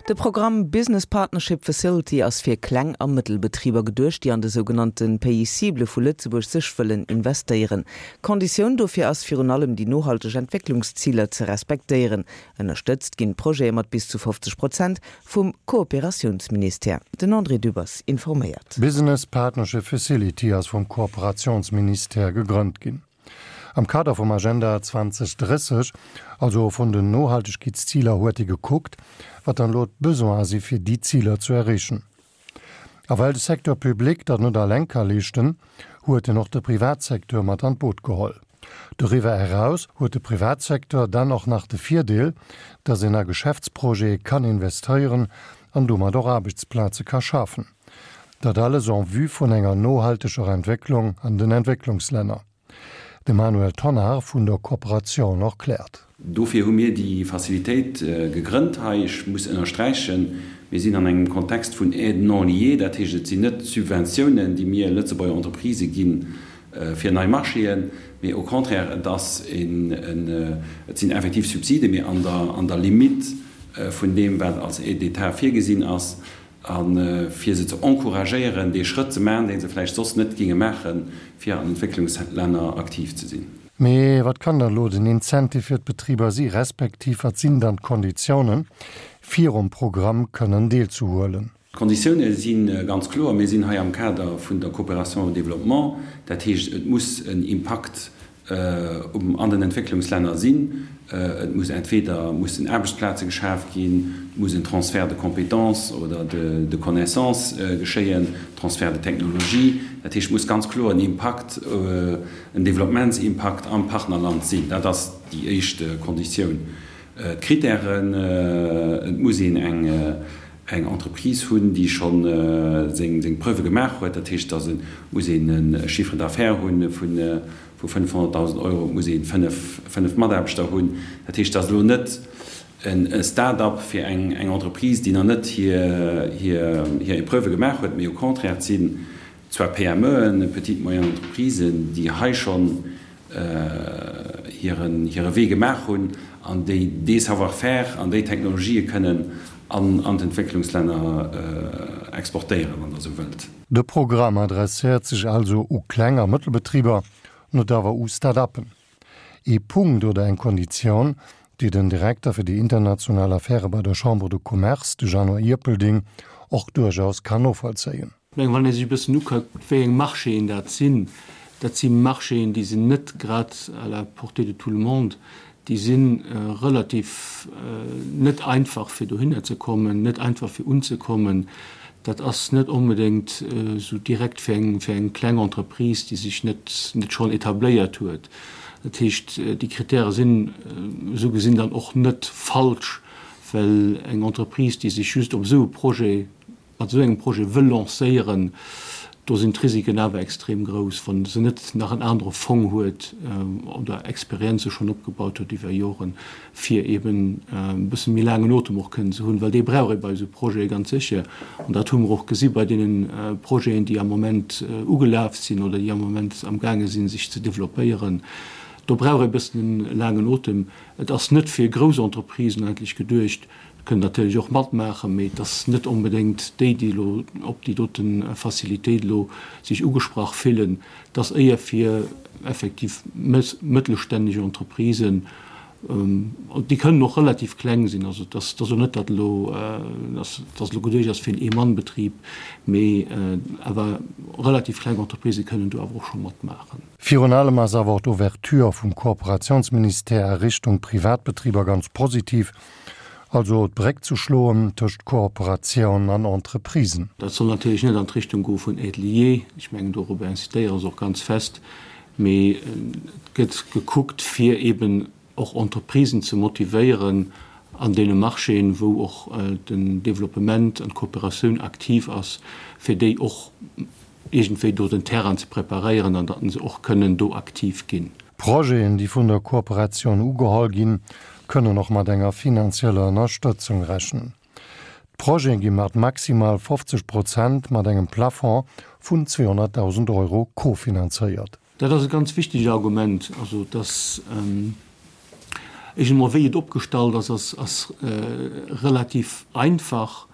De Programm Business Partnership Facility ass fir Kleng a Mëttelbetriber geduecht, déi an de sougenannte Pays cibles vu Lëtzebuerg sech wëllen investéieren. Konditioun dofir ass virun allem déi nohalteg Entwécklungsziler ze respektéieren. Ënnerstëtzt ginn d'Projete mat bis zu 50 Prozent vum Kooperatiounsministère. Den André Dübbers informéiert. D'Business Partnership Facility ass vum Kooperatiounsministère gegrënnt ginn. Am Kader vum Agenda 2030, also vun den Nohaltegkeetsziler, huet ee gekuckt, wat dann elo d'Besoine si fir déi Ziler zu erreechen. A well de Secteur public dat net alleng ka leeschten, huet en och de Privatsecteur mat an d'Boot geholl. Doriwwer eraus huet de Privatsecteur dann och nach de Virdeel, datt een a Geschäftsprojete kann investéieren an domat och Aarbechtsplaze ka schafen. Dat alles en vue vun enger nohalteger Entwécklung an den Entwécklungslänner. De Manuel Tonnar vun der Kooperatioun erkläert. Dofir hu mir déi Facilitéit gegrënnt hei. Ech muss ënnersträichen, mir sinn an engem Kontext vun Aide non liée, dat heescht, et sinn net Subventiounen, déi mir Lëtzebuerger Entreprisë gi fir nei Marchéen, mee au contraire, et ass een, et sinn effektiv Subsiden, mee an der, an der Limite vun deem, wat als Aide d'État virgesinn ass. A fir se ze encouragéieren, dee Schrëtt ze maachen, dee se vläicht soss net géinge maachen, fir an Entwécklungslänner aktiv ze sinn. Mee wat kann dann elo den Incentive fir d'Betriber si respektiv wat sinn dann d'Konditiounen, fir um Programm kënnen deelzehuelen? D'Konditioune si ganz kloer. Mir sinn hei am Kader vun der Coopération au développement. Dat heescht, et muss en Impakt um an den Entwécklungslänner sinn. Et muss entweder mussen Aarbechtsplaze geschaf ginn, et muss en Transfert de compétences oder de connaissances geschéien, Transfert de technologie. Dat heescht, et muss ganz kloer en Impakt, en Développementsimpakt am Partnerland sinn. Dat ass déi éischt Konditioun. D'Kritären, Et muss een eng Entreprise hunn, déi scho seng Preuve gemaach huet. Dat heescht, et muss een e Chiffre d'affaires hu vu 500.000 Euro, et muss ee 5 Mataarbechter hunn. Dat heescht, et ass elo net e Start-up fir eng Entreprise, déi nach net hir Epreuve gemaach huet, mee au contraire, et sinn zwar PMEen, Petites Moyennes Entreprisen, déi hei schonn hiren hire Wee gemaach hunn an déi dee Savoir-faire an déi Technologië kënnen an an d'Entwécklungslänner exportéieren, wann Der esou wëllt. De Programm adresséiert sech also u Kleng a Mëttelbetriber, net awer u Start-uppen. Ee Punkt oder eng Konditioun, déi den Direkter fir déi international Affäre bei der Chambre de Commerce, de Jeannot Ierpelding, och duerchaus kann novollzéien. Ech mengen, wann ee sech e bëssen ukuckt, wéi eng Marchéen dat sinn, dat si Marchéen, déi sinn net grad à la portée de tout le monde, déi si relativ net einfach, fir dohinner ze kommen, net einfach fir unzekommen. Dat ass net onbedéngt esou direkt fir eng, fir eng kleng Entreprise, déi sech net, net schonn etabléiert huet. Dat heescht, déi Kritäre sinn esou gesinn dann och net falsch, well eng Entreprise, déi sech just op esou e Projet mat esou engem Projet wëll lancéieren, do sinn d'Risiken awer extrem grouss, wa se net nach en anere Fong huet oder Experienze schonn opgebaut huet iwwer Joren, fir eeben e bësse méi laangen Otem och kënnen ze hunn, well dee brauch ee bei esou Projete ganz sécher. An dat hu mer och gesi bei deene Projeten, déi am Moment ugelaf sinn oder déi am Moment amgaange sinn, sech ze developpéieren. Do brauch ee e bëssen e laangen Otem. Et ass net fir grouss Entreprisen eigentlech geduecht, Kënnen natierlech och matmaachen, mee et ass net onbedéngt déi, déi elo op déi dote Facilitéit elo sech ugesprach fillen. Et ass éier fir effektiv mëttelstänneg Entreprisen, déi kënnen och relativ kleng sinn. Also et ass elo net, datt elo, datt elo geduecht ass fir en Ee-Mann-Betrib, mee awer relativ kleng Entreprisë kënnen do awer och scho matmaachen. Virun allem ass awer och d'Ouverture vum Kooperationsministère a Richtung Privatbetriber ganz positiv, also d'Bréck ze schloen tëscht Kooperatioun an Entreprisen. Dat soll natierlech net an d'Richtung goe vun Aide liée, ech mengen dorobber incitéiere se och ganz fest, mee et gëtt gekuckt fir eben och Entreprisen ze motivéieren an deene Marchéen, wou och den Développement an d'Kooperatioun aktiv ass, fir déi och iergendwéi do den Terrain ze preparéieren an datt se och kënnen do aktiv ginn. Projeten, déi vun der Kooperatioun ugeholl ginn, kënnen och mat enger finanzieller Ënnerstëtzung rechnen. D'Projete gi mat maximal 50 Prozent mat engem Plafond vun 200.000 Euro kofinanzéiert. Dat ass e ganz wichtegt Argument, also dass. Ech emol wéi et opgestallt ass, ass ass relativ einfach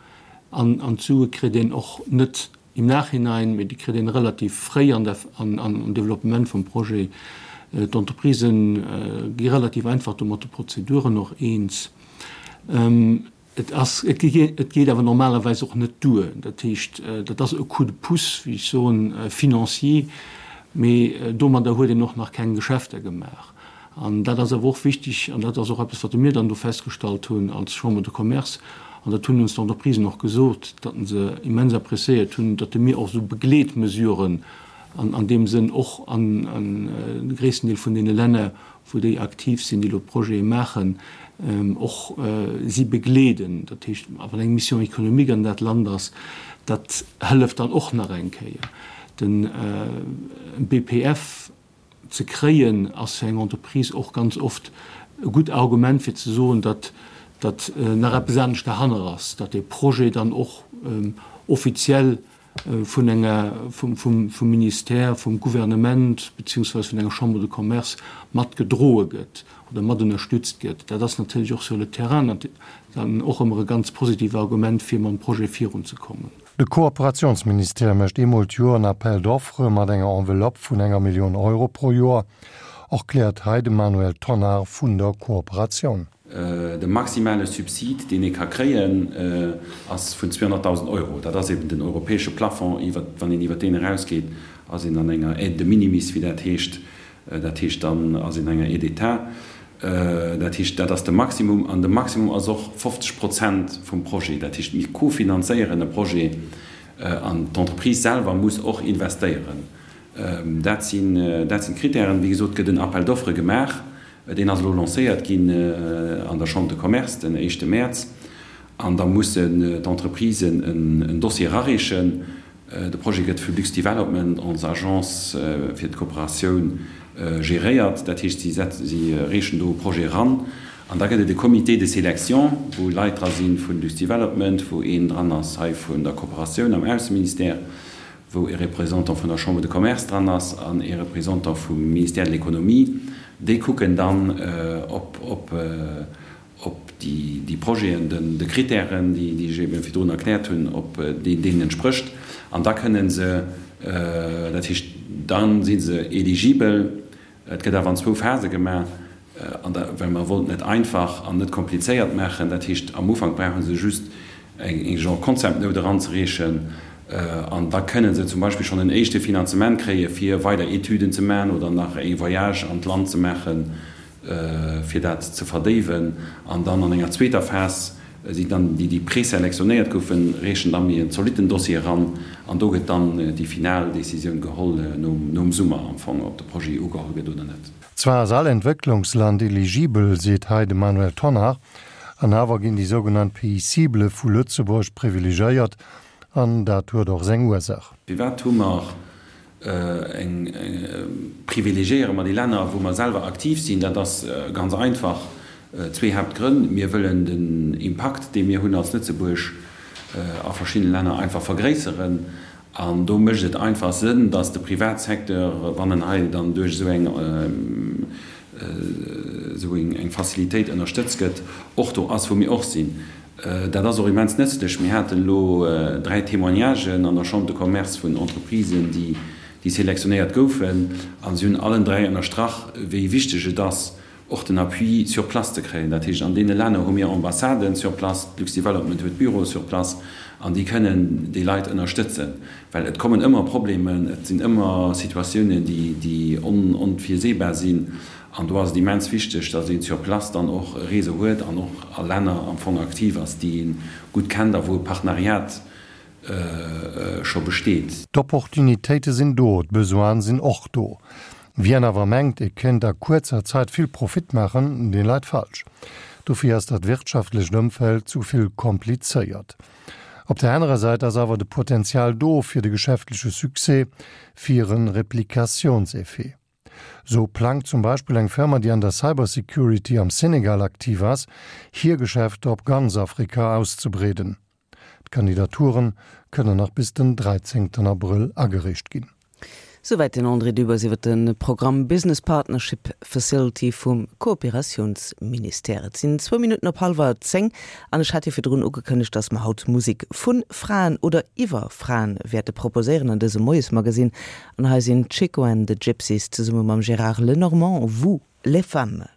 an an d'Sue kritt een och net im Nachhinein, mee déi kritt een relativ fréi an der an am Développement vum Projet. D'Entreprisen gi relativ einfach do mat de Prozeduren och eens. Et ass, et geet awer normalerweis och net duer. Dat heescht, dat ass e Coup de pouce, wéi ech soen, financier, mee domadder huet een och nach keng Geschäfter gemaach. An dat ass awer och wichtig, an dat ass och eppes, wat mir dann do festgestallt hunn als Chambre de Commerce, an dat hunn ons d'Entreprisen och gesot, datt se immens appréciéiert hunn, datt mir och esou Begleetmesuren an deem Sënn och an de gréissten Deel vun deene Länner, wou déi aktiv sinn, déi elo Projete maachen, och si begleeden. Dat heescht, wann eng Mission économique an dat Land ass, dat hëlleft dann och nach eng Kéier. De BPF ze kréien, ass fir eng Entreprise och ganz oft e gutt Argument fir ze soen, datt datt nach eppes anescht derhanner ass, datt dee Projet dann och offiziell vun enger, vum, vum, vum Ministère, vum Gouvernement beziehungsweise vun enger Chambre de Commerce mat gedroe gëtt oder mat ënnerstützt gëtt. Dat ass natierlech och sur le terrain dann och ëmmer e ganz positiv Argument, fir mam Projet virunzekommen. De Kooperationsministère mécht eemol d'Joer en Appel d'offres mat enger Enveloppe vun enger Millioun Euro pro Joer, erkläert hei de Manuel Tonnar vun der Kooperatioun. De maximale Subsid, deen ee ka kréien, ass vun 200.000 Euro. Dat ass eben den europäesche Plafond. Iwwer, wann een iwwer deen erausgeet, ass een an enger Aide de minimis, wéi dat heescht. Dat heescht, dann ass een an enger Aide d'État. Dat heescht, dat ass de Maximum. An de Maximum ass och 50 Prozent vum Projet. Dat heescht, mir kofinanzéieren e Projet an d'Entreprise selwer muss och investéieren. Dat sinn, dat sinn d'Kritären. Wéi gesot gëtt en Appel d'offres gemaach. Deen ass elo lancéiert ginn an der Chambre de Commerce den éischte Mäerz. An da mussen d'Entreprisen en Dossier erareechen. De Projet gëtt vu Lux-Development, ons Agence fir d'Kooperatioun, geréiert. Dat heescht, si reechen do e Projet eran. An da gëtt et e Comité de sélection, wou Leit dra si vu Lux-Development, wou een dran ass hei vun der Kooperatioun am Ausseministère, wou e Représentant vun der Chambre de Commerce dran ass an e Représentant vum Ministère de l'Économie, déi kucken dann, ob ob déi Projeten de Kritären, déi ech ebe virdrun erkläert hunn, ob déi deenen entsprécht. An da kënne se, dat heescht, da si se eligibel. Et gëtt awer an zwou Phase gemaach, an da, well mer wollten et einfach an net komplizéiert maachen. Dat heescht, am Ufank brauche se just eng genre Concept Note eranzereechen an da kënne se zum Beispill schonn en éischte Finanzement kréie fir weider Etüden ze maachen oder nach e Voyage an d'Land ze maachen, fir dat ze verdéiwen. An dann an enger zweeter Phas sinn dann déi, déi preselektionéiert goufen, reechen da méi en zolitten Dossier eran an do gëtt dann déi final Décisioun geholl nom Summer am Fong, ob de Projet ugeholl gëtt oder net. Zwar ass all Entwécklungsland eligibel, seet hei de Manuel Tonnar, an awer ginn déi sougenannt Pays cibles vu Lëtzebuerg privilegéiert, an dat huet och seng Ursaach. Firwat hu mer eng, privilegiéiere mer déi Länner, wou mer selwer aktiv sinn? Dat ass ganz einfach, zwee Haaptgrënn. Mir wëllen den Impakt, dee mir hunn als Lëtzebuerg a verschiddene Länner, einfach vergréisseren. An do mécht et einfach Sënn, datt de Privatsecteur, wann en hei dann duerch esou eng, esou eng Facilitéit ënnerstëtzt gëtt, och do ass, wou mir och sinn. Dat ass och immens nëtzlech. Mir haten elo dräi Témoignagen an der Chambre de Commerce vun Entreprisen, déi selektionéiert goufen, a si hunn allen dräi ënnerstrach, wéi wichteg et ass, och den Appui sur place ze kréien. Dat heescht, an deene Länner hu mir Ambassaden sur place, d'Lux-Development huet Büroe sur place, an déi kënnen déi Leit ënnerstëtzen. Well et kommen ëmmer Problemen, et sinn ëmmer Situatiounen, déi onvirseebar sinn. An do ass et immens wichteg, datt een sur place dann och e Réseau huet an och a Länner am Fong aktiv ass, déi ee gutt kennt a wou e Partenariat scho besteet. D'Opportunitéite sinn do, d'Besoine sinn och do. Wien awer mengt, e kéint a kuerzer Zäit vill Profit maachen, dee leit falsch. Dofir ass dat wirtschaftlecht Ëmfeld zu vill komplizéiert. Op der anerer Säit ass awer de Potenzial do fir de geschäftleche Succès, fir e Replikationseffet. Sou plangt zum Beispill eng Firma, déi an der Cybersecurity am Senegal aktiv ass, hir Geschäfter op ganz Afrika auszebreeden. D'Kandidaturen kënnen nach bis den 13 Abrëll agereecht ginn. Souwäit den André Dübbers iwwer de Programm Business Partnership Facility vum Kooperatiounsministère. Et sinn zwou Minutten op hallwer 10 an ech hat jo virdrun ugekënnegt, dass mer haut Musek vu Fraen oder iwwer Fraen wäerte proposéieren an dësem Moiesmagasinn. An hei sinn d'Chico and the Gypsies zesumme mam Gérard Lenormand, Vous, les femmes.